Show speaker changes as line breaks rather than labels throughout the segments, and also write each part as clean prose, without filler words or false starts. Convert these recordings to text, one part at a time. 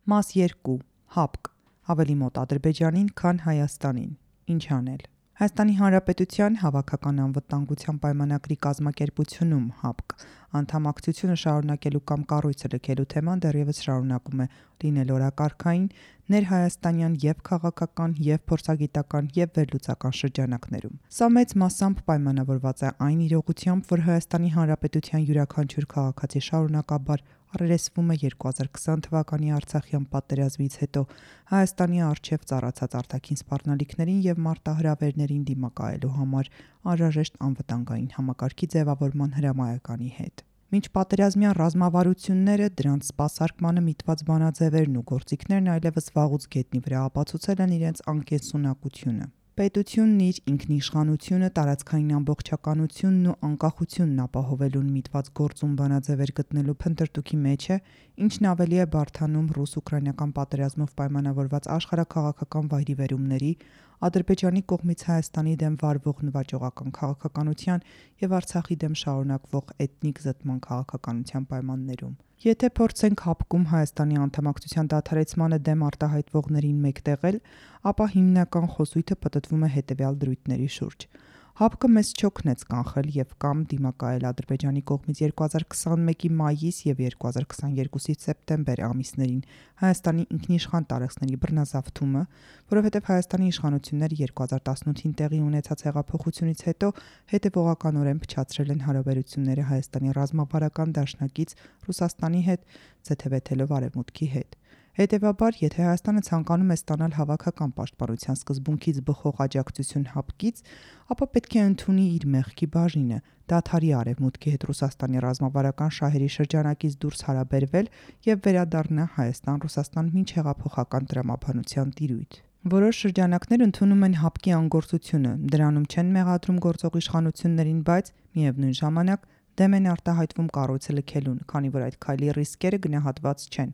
Մաս 2. ՀԱՊԿ. Ավելի մոտ Ադրբեջանին, քան Հայաստանին։ Ինչ անել։ Հայաստանի Հանրապետության Հավաքական անվտանգության պայմանագրի կազմակերպությունում ՀԱՊԿ անդամակցությունը շարունակելու կամ կառույցը լքելու թեման դեռևս շարունակում է լինել օրակարգային ներհայաստանյան և քաղաքական, և փորձագիտական, և վերլուծական շրջանակներում։ Սա մեծ մասամբ պայմանավորված է այն իրողությամբ, որ Հայաստանի Հանրապետության յուրաքանչյուր քաղաքացի շարունակաբար առերեսվում է 2020 թվականի Արցախյան պատերազմից հետո Հայաստանի առջև ծառացած արտաքին սպառնալիքներին և մարտահրավերներին դիմակայելու համար անհրաժեշտ անվտանգային համակարգի ձևավորման հրամայականի հետ։ Մինչ պատերազմյան ռազմավարությունները, դրանց սպասարկմանը միտված բանաձևերն ու գործիքներն այլևս վաղուց գետնի վրա ապացուցել են իրենց անկենսունակությունը։ Պետությունն իր ինքնիշխանությունը, տարածքային ամբողջականությունն ու անկախությունն ապահովելուն միտված գործում բանաձևեր գտնելու փնտրտուքի մեջ է, ինչն ավելի է բարդանում ռուս-ուկրաինական պատերազմով պայմանավորված աշխարհաքաղաքական վայրիվերումների, Ադրբեջանի կողմից Հայաստանի դեմ վարվող նվաճողական քաղաքականության և Արցախի դեմ շարունակվող էթնիկ զտման քաղաքականության պայմաններում։ Եթե փորձենք ՀԱՊԿ-ում Հայաստանի անդամակցության դադարեցմանը դեմ արտահայտվողներին մեկտեղել, ապա հիմնական խոսույթը պտտվում է հետևյալ դրույթների շուրջ։ ՀԱՊԿ-ը մեզ չօգնեց կանխել և կամ դիմակայել Ադրբեջանի կողմից 2021-ի մայիս և 2022-ի սեպտեմբեր ամիսներին Հայաստանի ինքնիշխան տարածքների բռնազավթումը, որովհետև Հայաստանի իշխանությունները 2018-ին տեղի ունեցած հեղափոխությունից հետո հետևողականորեն փչացրել են հարաբերությունները Հայաստանի ռազմավարական դաշնակից Ռուսաստանի հետ, ձեթևեթելով Արևմուտքի հետ։ Հետևաբար, եթե Հայաստանը ցանկանում է ստանալ հավաքական պաշտպանության սկզբունքից բխող աջակցություն ՀԱՊԿ-ից, ապա պետք է ընդունի իր մեղքի բաժինը, դադարի Արևմուտքի հետ Ռուսաստանի ռազմավարական շահերի շրջանակից դուրս հարաբերվել և վերադառնա Հայաստան-Ռուսաստան մինչհեղափոխական տրամաբանության տիրույթ։ Որոշ շրջանակներ ընդունում են ՀԱՊԿ-ի անգործությունը, դրանում չեն մեղադրում գործող իշխանություններին, բայց միևնույն ժամանակ դեմ են արտահայտվում կառույցը լքելուն, քանի որ այդ քայլի ռիսկերը գնահատված չեն։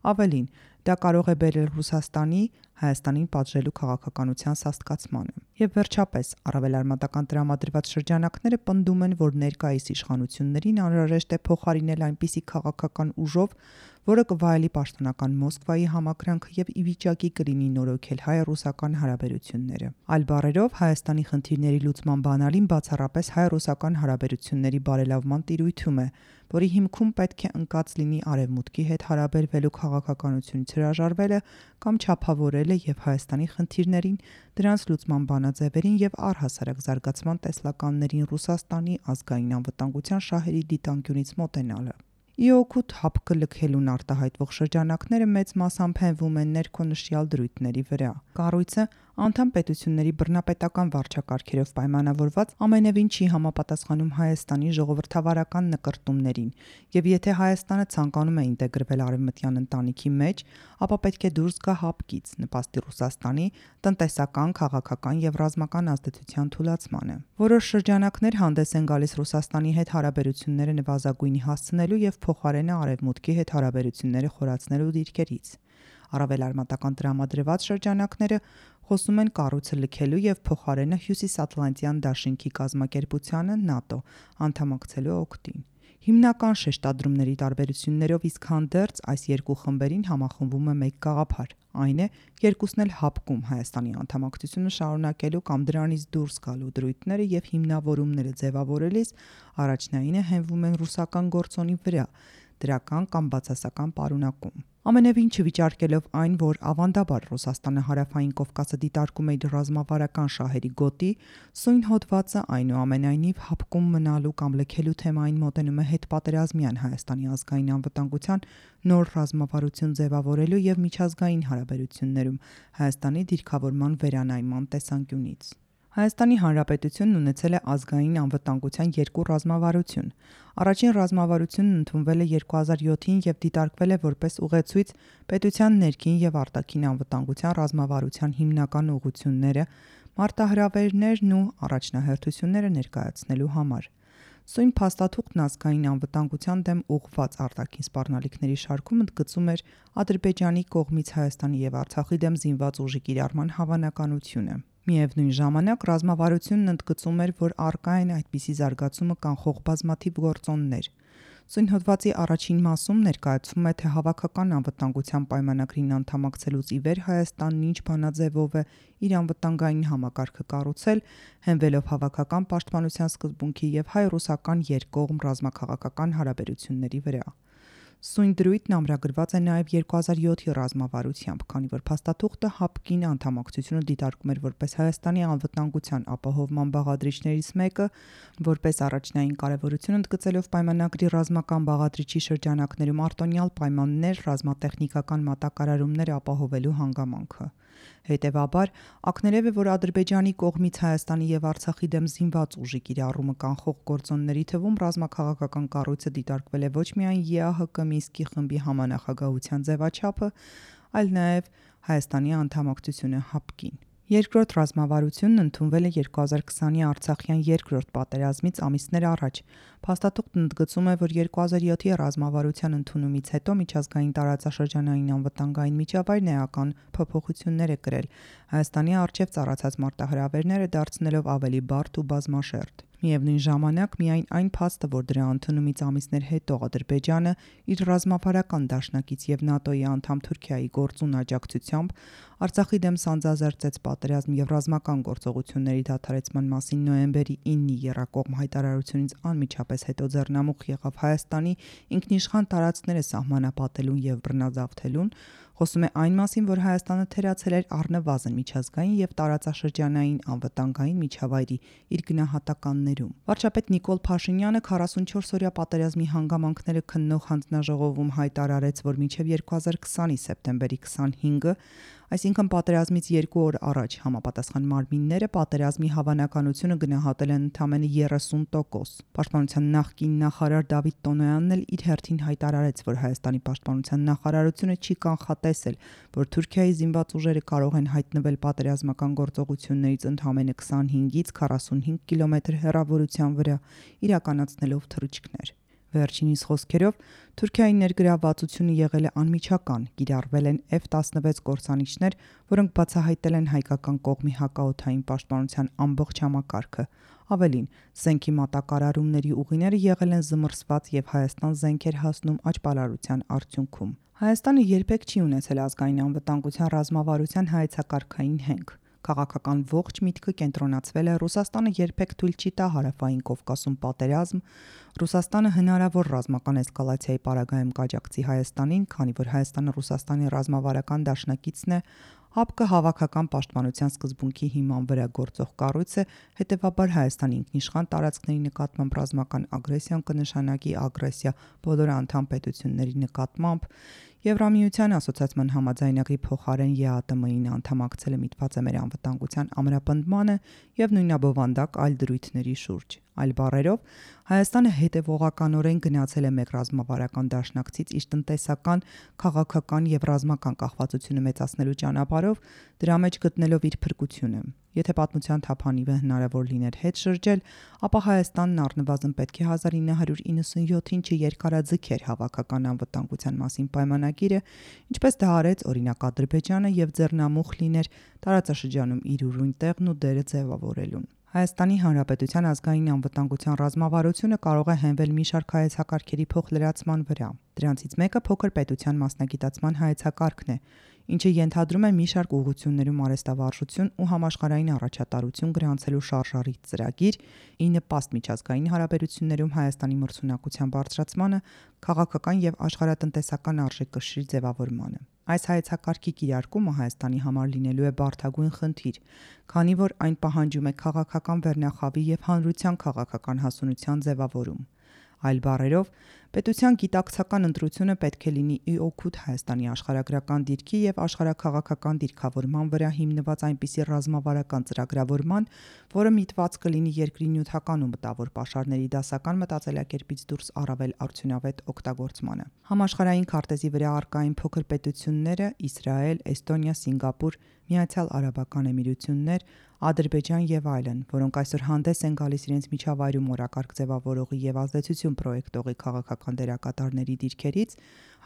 Ավելին, դա կարող է բերել Ռուսաստանի Հայաստանին պատժելու քաղաքականության սաստկացմանը։ Եվ վերջապես, առավել արմատական տրամադրված շրջանակները պնդում են, որ ներկայիս իշխանություններին անհրաժեշտ է փոխարինել այնպիսի քաղաքական ուժով, որը կվայելի պաշտոնական Մոսկվայի համակրանքը և ի վիճակի կլինի նորոգել հայ-ռուսական հարաբերությունները։ Այլ բառերով, Հայաստանի խնդիրների լուծման բանալին բացառապես հայ-ռուսական հարաբերությունների բարելավման տիրույթում է, որի հիմքում պետք է ընկած լինի Արևմուտքի հետ հարաբերվելու քաղաքականությունից հրաժարվելը կամ չափավորելը և Հայաստանի խնդիրներին, դրանց լուծման բանաձևերին և առհասարակ զարգացման տեսլականներին Ռուսաստանի ազգային անվտանգության շահերի դիտանկյունից մոտենալը։ Ի օգուտ ՀԱՊԿ լքելուն արտահայտվող շրջանակները մեծ մասամբ հենվում են ներքոնշյալ դրույթների վրա։ Կառույցը անդամ պետությունների բռնապետական վարչակարգերով պայմանավորված ամենևին չի համապատասխանում Հայաստանի ժողովրդավարական նկրտումներին, և եթե Հայաստանը ցանկանում է ինտեգրվել արևմտյան ընտանիքի մեջ, ապա պետք է դուրս գա ՀԱՊԿ-ից, նպաստի Ռուսաստանի տնտեսական, քաղաքական և ռազմական ազդեցության թուլացմանը։ Որոշ շրջանակներ հանդես են գալիս Ռուսաստանի հետ հարաբերությունները նվազագույնի հասցնելու և փոխարենը Արևմուտքի հետ հարաբերությունները խորացնելու դիրքերից։ Առավել արմատական տրամադրված շրջանակները խոսում են կառույցը լքելու և փոխարենը Հյուսիսատլանտյան դաշինքի կազմակերպությանը ՆԱՏՕ անդամակցելու օգտին։ Հիմնական շեշտադրումների տարբերություններով իսկ հանդերձ այս երկու խմբերին համախմբում է մեկ գաղափար, այն է երկուսն էլ ՀԱՊԿ-ում Հայաստանի անդամակցությունը շարունակելու կամ դրանից դուրս գալու դրույթները և հիմնավորումները ձևավորելիս առաջնայինը հենվում են ռուսական գործոնի վրա, դրական կամ բացասական պարունակում։ Ամենևին չվիճարկելով այն, որ ավանդաբար Ռուսաստանը Հարավային Կովկասը դիտարկում է իր ռազմավարական շահերի գոտի, սույն հոդվածը այնուամենայնիվ ՀԱՊԿ-ում մնալու կամ լքելու թեմային մոտենում է հետպատերազմյան Հայաստանի ազգային անվտանգության նոր ռազմավարություն ձևավորելու և միջազգային հարաբերություններում Հայաստանի դիրքավորման վերանայման տեսանկյունից։ Հայաստանի Հանրապետությունն ունեցել է ազգային անվտանգության երկու ռազմավարություն։ Առաջին ռազմավարությունն ընդունվել է 2007-ին և դիտարկվել է որպես ուղեցույց պետության ներքին և արտաքին անվտանգության ռազմավարության հիմնական ուղղությունները, մարտահրավերներն ու առաջնահերթությունները ներկայացնելու համար։ Սույն փաստաթուղթն ազգային անվտանգության դեմ ուղղված արտաքին սպառնալիքների շարքում ընդգծում էր Ադրբեջանի կողմից Հայաստանի և Արցախի դեմ զինված ուժի կիրառման հավանականությունը։ Միևնույն ժամանակ ռազմավարությունն ընդգծում էր, որ առկա են այդպիսի զարգացումը կանխող բազմաթիվ գործոններ։ Սույն հոդվածի առաջին մասում ներկայացվում է, թե հավաքական անվտանգության պայմանագրին անդամակցելուց ի վեր Հայաստանն ինչ բանաձևով է իր անվտանգային համակարգը կառուցել, հենվելով հավաքական պաշտպանության սկզբունքի եւ հայ-ռուսական երկկողմ ռազմաքաղաքական հարաբերությունների վրա։ Սույն դրույթն ամրագրված է նաև 2007-ի ռազմավարությամբ, քանի որ փաստաթուղթը ՀԱՊԿ-ին անդամակցությունը դիտարկում էր որպես Հայաստանի անվտանգության ապահովման բաղադրիչներից մեկը, որպես առաջնային կարևորություն ընդգծելով պայմանագրի ռազմական բաղադրիչի շրջանակներում արտոնյալ պայմաններ ռազմատեխնիկական մատակարարումներ ապահովելու հանգամանքը։ Հետևաբար, ակներև է, որ Ադրբեջանի կողմից Հայաստանի եւ Արցախի դեմ զինված ուժի կիրառումը կանխող գործոնների թվում ռազմաքաղաքական կառույցը դիտարկվել է ոչ միայն ԵԱՀԿ Մինսկի խմբի համանախագահության ձևաչափը, այլ նաև Հայաստանի անդամակցությունը ՀԱՊԿ-ին։ Երկրորդ ռազմավարությունն ընդունվել է 2020-ի Արցախյան երկրորդ պատերազմից ամիսներ առաջ։ Փաստաթուղթն ընդգծում է, որ 2007-ի ռազմավարության ընդունումից հետո միջազգային տարածաշրջանային անվտանգային միջավայրն էական փոփոխություններ է կրել, Հայաստանի առջև ծառացած մարտահրավերները դարձնելով ավելի բարդ ու բազմաշերտ։ Միևնույն ժամանակ միայն այն փաստը, որ դրա ընդունումից ամիսներ հետո Ադրբեջանը իր ռազմավարական դաշնակից եւ ՆԱՏՕ-ի անդամ Թուրքիայի գործուն աջակցությամբ Արցախի դեմ սանձազերծեց պատերազմ եւ ռազմական գործողությունների դադարեցման մասին նոյեմբերի 9-ի եռակողմ հայտարարությունից անմիջապես հետո ձեռնամուխ եղավ Հայաստանի ինքնիշխան տարածքները սահմանապատելուն եւ բռնազավթելուն, խոսում է այն մասին, որ Հայաստանը թերացել էր առնվազն միջազգային եւ տարածաշրջանային անվտանգային միջավայրի իր գնահատականներում։ Վարչապետ Նիկոլ Փաշինյանը 44-օրյա պատերազմի հանգամանքները քննող հանձնաժողովում հայտարարեց, որ մինչև 2020-ի սեպտեմբերի 25-ը, այսինքն պատերազմից 2 օր առաջ, համապատասխան մարմինները պատերազմի հավանականությունը գնահատել են ընդամենը 30%։ Պաշտպանության նախկին նախարար Դավիթ Տոնոյանն էլ իր հերթին հայտարարեց, որ Հայաստանի պաշտպանության նախարարությունը չի կանխատեսել, որ Թուրքիայի զինված ուժերը կարող են հայտնվել պատերազմական գործողություններից ընդամենը 25-ից 45 կիլոմետր հեռավորության վրա, իրականացնելով թռիչքներ։ Վերջինիս խոսքերով, Թուրքիայի ներգրավվածությունը եղել է անմիջական, կիրառվել են F-16 կործանիչներ, որոնք բացահայտել են հայկական կողմի հակաօդային պաշտպանության ամբողջ համակարգը։ Ավելին, զենքի մատակարարումների ուղիները եղել են զմռսված եւ Հայաստան զենք էր հասնում աճպարարության արդյունքում։ Հայաստանը երբեք չի ունեցել ազգային անվտանգության ռազմավարության հայեցակարգային հենք։ Քաղաքական ողջ միտքը կենտրոնացվել է Ռուսաստանը երբեք թույլ չի տա հարավային Կովկասում պատերազմ, Ռուսաստանը հնարավոր ռազմական էսկալացիայի պարագայում կաջակցի Հայաստանին, քանի որ Հայաստանը Ռուսաստանի ռազմավարական դաշնակիցն է, ՀԱՊԿ-ը հավաքական պաշտպանության սկզբունքի հիման վրա գործող կառույց է, հետևաբար Հայաստանի ինքնիշխան տարածքների նկատմամբ ռազմական ագրեսիան կնշանակի ագրեսիա բոլոր անդամ պետությունների նկատմամբ, Եվրամիության ասոցիացիան համաձայնագրի փոխարեն ԵԱՏՄ-ին անդամակցելը միտված է մեր անվտանգության ամրապնդմանը եւ նույնաբովանդակ այլ դրույթների շուրջ։ Այլ բառերով, Հայաստանը հետևողականորեն գնացել է մեկ ռազմավարական դաշնակցից իր տնտեսական, քաղաքական եւ ռազմական կախվածությունը մեծացնելու ճանապարհով, դրա մեջ գտնելով իր փրկությունը։ Եթե պատմության թափանիվը հնարավոր լիներ հետ շրջել, ապա Հայաստանն առնվազն պետք է 1997-ին չերկարաձգեր հավաքական անվտանգության մասին պայմանագիրը, ինչպես դա արեց օրինակ Ադրբեջանը եւ ձեռնամուխ լիներ տարածաշրջանում իր ուրույն տեղն ու դերը ձևավորելուն։ Հայաստանի Հանրապետության ազգային անվտանգության ռազմավարությունը կարող է հենվել մի շարք հայեցակարգերի փոխլրացման վրա։ Դրանցից մեկը փոքր պետության մասնագիտացման հայեցակարգն է, ինչը ենթադրում է մի շարք ուղղություններում արհեստավարժություն ու համաշխարհային առաջատարություն գրանցելու շարժառիթ ծրագիր, ի նպաստ միջազգային հարաբերություններում Հայաստանի մրցունակության բարձրացմանը, քաղաքական եւ աշխարհատնտեսական արժեքկշռի ձևավորմանը։ Այս հայեցակարգի կիրարկումը Հայաստանի համար լինելու է բարդագույն խնդիր, քանի որ այն պահանջում է քաղաքական վերնախավի եւ հանրության քաղաքական հասունության ձևավորում։ Այլ բառերով, պետության գիտակցական ընտրությունը պետք է լինի ի օգուտ Հայաստանի աշխարհագրական դիրքի եւ աշխարհաքաղաքական դիրքավորման վրա հիմնված այնպիսի ռազմավարական ծրագրավորման, որը միտված կլինի երկրի նյութական ու մտավոր պաշարների դասական մտածելակերպից դուրս առավել արդյունավետ օգտագործմանը։ Համաշխարհային քարտեզի վրա առկային փոքր պետությունները Իսրայել, Էստոնիա, Սինգապուր, Միացյալ Արաբական Էմիրություններ, Ադրբեջան եւ այլն, որոնք այսօր հանդես են գալիս իրենց միջավայրում օրակարգ ձևավորողի եւ ազդեցություն պրոյեկտողի քաղաքական դերակատարների դիրքերից,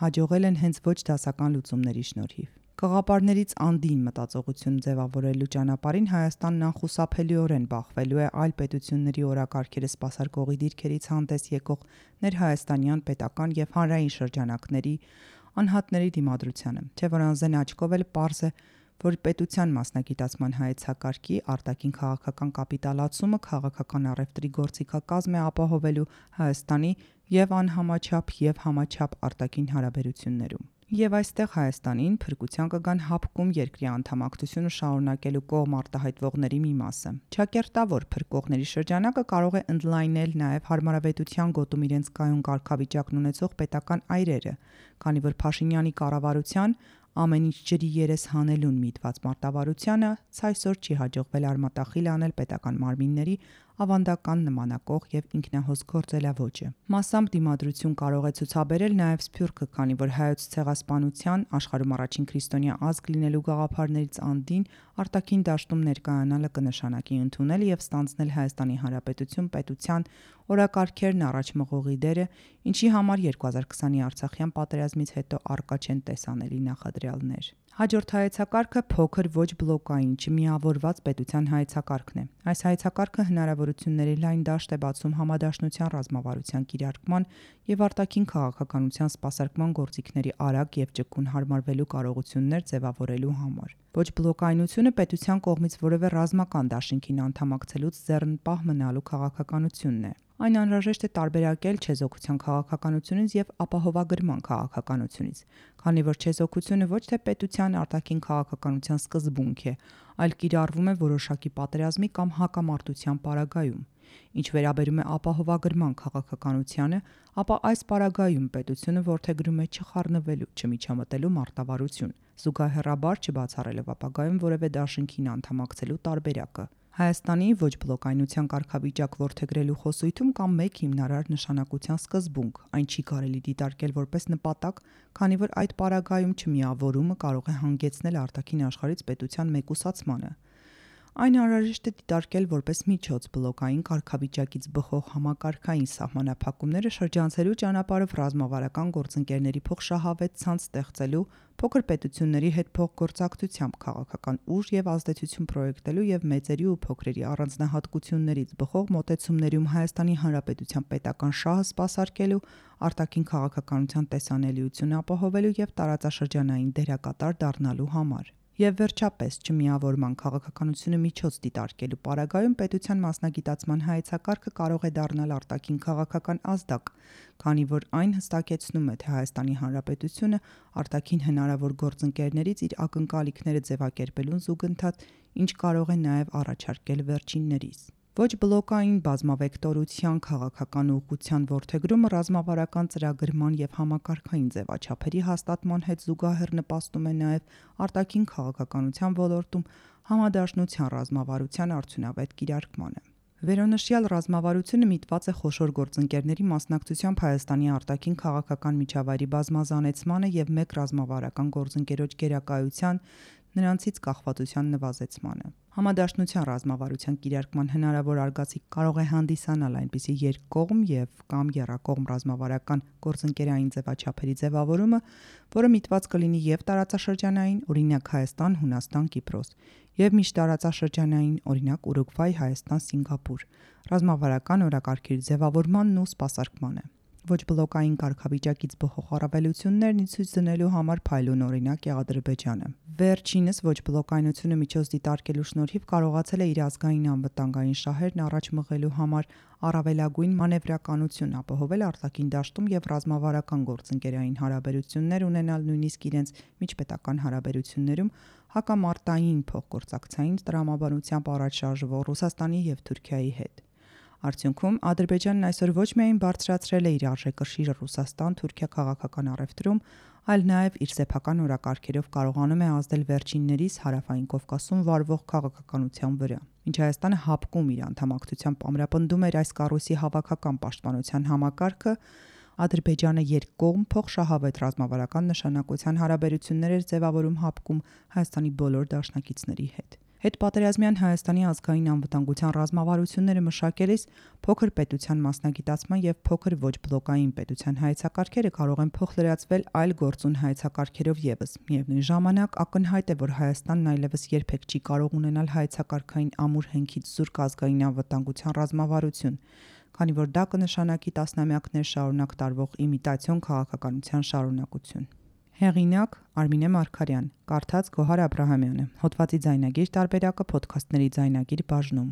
հաջողել են հենց ոչ դասական լուծումների շնորհիվ։ Գաղափարներից անդին մտածողություն ձևավորելու ճանապարհին Հայաստանն անխուսափելիորեն բախվելու է այլ պետությունների օրակարգերը սպասարկողի դիրքերից հանդես եկող ներհայաստանյան պետական եւ հանրային շրջանակների անհատների դիմադրությանը, չէ՞ որ անզեն աչքով էլ պարզ է, որ պետության մասնագիտացման հայեցակարգի արտաքին քաղաքական կապիտալացումը քաղաքական առևտրի գործիքակազմ է ապահովելու Հայաստանի եւ անհամաչափ եւ համաչափ արտաքին հարաբերություններում։ Եվ այստեղ Հայաստանին փրկության կգան հապկում երկրի անդամակցությունը շարունակելու կողմ արտահայտվողների մի մասը։ Չակերտավոր փրկողների շրջանակը կարող է ընդլայնել նաև հարմարավետության գոտում իրենց կայուն կարգավիճակն ունեցող պետական այրերը, քանի որ Փաշինյանի կառավարության ամեն ինչ ջրի երես հանելուն միտված մարտավարությանը ցայսօր չի հաջողվել արմատախիլ անել պետական մարմինների ավանդական նմանակող եւ ինքնահոս գործելավոճը։ Մասամբ դիմադրություն կարող է ցուցաբերել նաև Սփյուռքը, քանի որ հայոց ցեղասպանության աշխարհում առաջին քրիստոնյա ազգ լինելու գաղափարներից անդին արտաքին դաշտում ներկայանալը կնշանակի ընդունել եւ ստանձնել Հայաստանի Հանրապետություն պետության օրակարգերն առաջ մղողի դերը, ինչի համար 2020-ի Արցախյան պատերազմից հետո առկա չեն տեսանելի նախադրյալներ։ Հաջորդ հայեցակարգը փոքր ոչ բլոկային չմիավորված պետության հայեցակարգն է։ Այս հայեցակարգը հնարավորությունների լայն դաշտ է բացում համադաշնության ռազմավարության կիրարկման եւ արտաքին քաղաքականության սպասարկման գործիքների արագ եւ ճկուն հարմարվելու կարողություններ ձևավորելու համար։ Ոչ բլոկայնությունը պետության կողմից որևէ ռազմական դաշինքին անդամակցելուց ձեռնպահ մնալու քաղաքականությունն է։ Այն անհրաժեշտ է տարբերակել չեզոքության քաղաքականությունից եւ ապահովագրման քաղաքականությունից, քանի որ չեզոքությունը ոչ թե պետության արտաքին քաղաքականության սկզբունք է, այլ կիրառվում է որոշակի պատերազմի կամ հակամարտության պարագայում։ Ինչ վերաբերում է ապահովագրման քաղաքականությանը, ապա այս պարագայում պետությունը որդեգրում է չխառնվելու, չմիջամտելու մարտավարություն, զուգահեռաբար չբացառելով ապագայում որևէ դաշինքին անդամակցելու տարբերակը։ Հայաստանի ոչ բլոկայնության կարգավիճակ որդեգրելու խոսույթում կա մեկ հիմնարար նշանակության սկզբունք, այն չի կարելի դիտարկել որպես նպատակ, քանի որ այդ պարագայում չմիավորումը կարող է հանգեցնել արտաքին աշխարհից պետության մեկուսացմանը։ Այն անհրաժեշտ է դիտարկել որպես միջոց բլոկային կարգավիճակից բխող համակարգային սահմանափակումները շրջանցելու ճանապարհով ռազմավարական գործընկերների փոխշահավետ ցանց ստեղծելու, փոքր պետությունների հետ փոխգործակցությամբ քաղաքական ուժ եւ ազդեցություն պրոյեկտելու եւ մեծերի ու փոքրերի առանձնահատկություններից բխող մոտեցումներում Հայաստանի Հանրապետության պետական շահը սպասարկելու, արտաքին քաղաքականության տեսանելիություն ապահովելու եւ տարածաշրջանային դերակատար դառնալու համար։ Եվ վերջապես չմիավորման քաղաքականությունը միջոց դիտարկելու պարագայում պետության մասնագիտացման հայեցակարգը կարող է դառնալ արտաքին քաղաքական ազդակ, քանի որ այն հստակեցնում է, թե Հայաստանի Հանրապետությունը արտաքին հնարավոր գործընկերներից իր ակնկալիքները ձևակերպելուն զուգընթաց, ինչ կարող է նաև առաջարկել վերջիններիս։ Ոչ բլոկային բազմավեկտորության քաղաքական ուղղության որդեգրումը ռազմավարական ծրագրման եւ համակարգային ձևաչափերի հաստատման հետ զուգահեռ նպաստում է նաեւ արտաքին քաղաքականության ոլորտում համադաշնության ռազմավարության արդյունավետ կիրարկմանը։ Վերոնշյալ ռազմավարությունը միտված է խոշոր գործընկերների մասնակցությամբ Հայաստանի արտաքին քաղաքական միջավայրի բազմազանեցմանը եւ մեկ ռազմավարական գործընկերոջ գերակայության նրանցից կախվածության նվազեցմանը։ Համադաշնության ռազմավարության կիրարկման հնարավոր արգացիկ կարող է հանդիսանալ այնպիսի երկկողմ եւ կամ եռակողմ ռազմավարական գործընկերային ձևաչափերի ձևավորումը, որը միտված կլինի եւ տարածաշրջանային, օրինակ Հայաստան, Հունաստան, Կիպրոս, եւ միջտարածաշրջանային, օրինակ Ուրուգվայ, Հայաստան, Սինգապուր, ռազմավարական օրակարգերի ձևավորմանն ու սպասարկմանը։ Ոչ բլոկային կարգավիճակից բխող առավելություններն ի ցույց դնելու համար փայլուն օրինակ է Ադրբեջանը։ Վերջինս ոչ բլոկայնությունը միջոց դիտարկելու շնորհիվ կարողացել է իր ազգային անվտանգային շահերն առաջ մղելու համար առավելագույն մանևրականություն ապահովել արտաքին դաշտում եւ ռազմավարական գործընկերային հարաբերություններ ունենալ նույնիսկ իրենց միջպետական հարաբերություններում հակամարտային փոխգործակցային տրամաբանությամբ առաջ շարժվող Ռուսաստանի եւ Թուրքիայի հետ։ Արդյունքում Ադրբեջանն այսօր ոչ միայն բարձրացրել է իր արժեքրշիռը Ռուսաստան-Թուրքիա քաղաքական առևտրում, այլ նաև իր սեփական օրակարգերով կարողանում է ազդել վերջիններիս Հարավային Կովկասում վարվող քաղաքականության վրա։ Մինչ Հայաստանը հապկում իր անդամակցությամբ ամրապնդում էր այս կառույցի հավաքական պաշտպանության համակարգը, Ադրբեջանը երկկողմ փոխշահավետ ռազմավարական նշանակության հարաբերություններ էր ձևավորում հապկում Հայաստանի բոլոր դաշնակիցների հետ։ Հետպատերազմյան Հայաստանի ազգային անվտանգության ռազմավարությունները մշակելիս փոքր պետության մասնագիտացման եւ փոքր ոչ բլոկային պետության հայեցակարգերը կարող են փոխլրացվել այլ գործուն հայեցակարգերով եւս։ Միևնույն ժամանակ ակնհայտ է, որ Հայաստանն այլևս երբեք չի կարող ունենալ հայեցակարգային ամուր հենքից զուրկ ազգային անվտանգության ռազմավարություն, քանի որ դա կնշանակի տասնամյակներ շարունակ տարվող իմիտացիոն քաղաքականության շարունակություն։ Հեղինակ Արմինե Մարգարյան, կարդաց Գոհար Աբրահամյանը, հոդվածի ձայնագիր տարբերակը Փոդքասթների ձայնագիր բաժնում։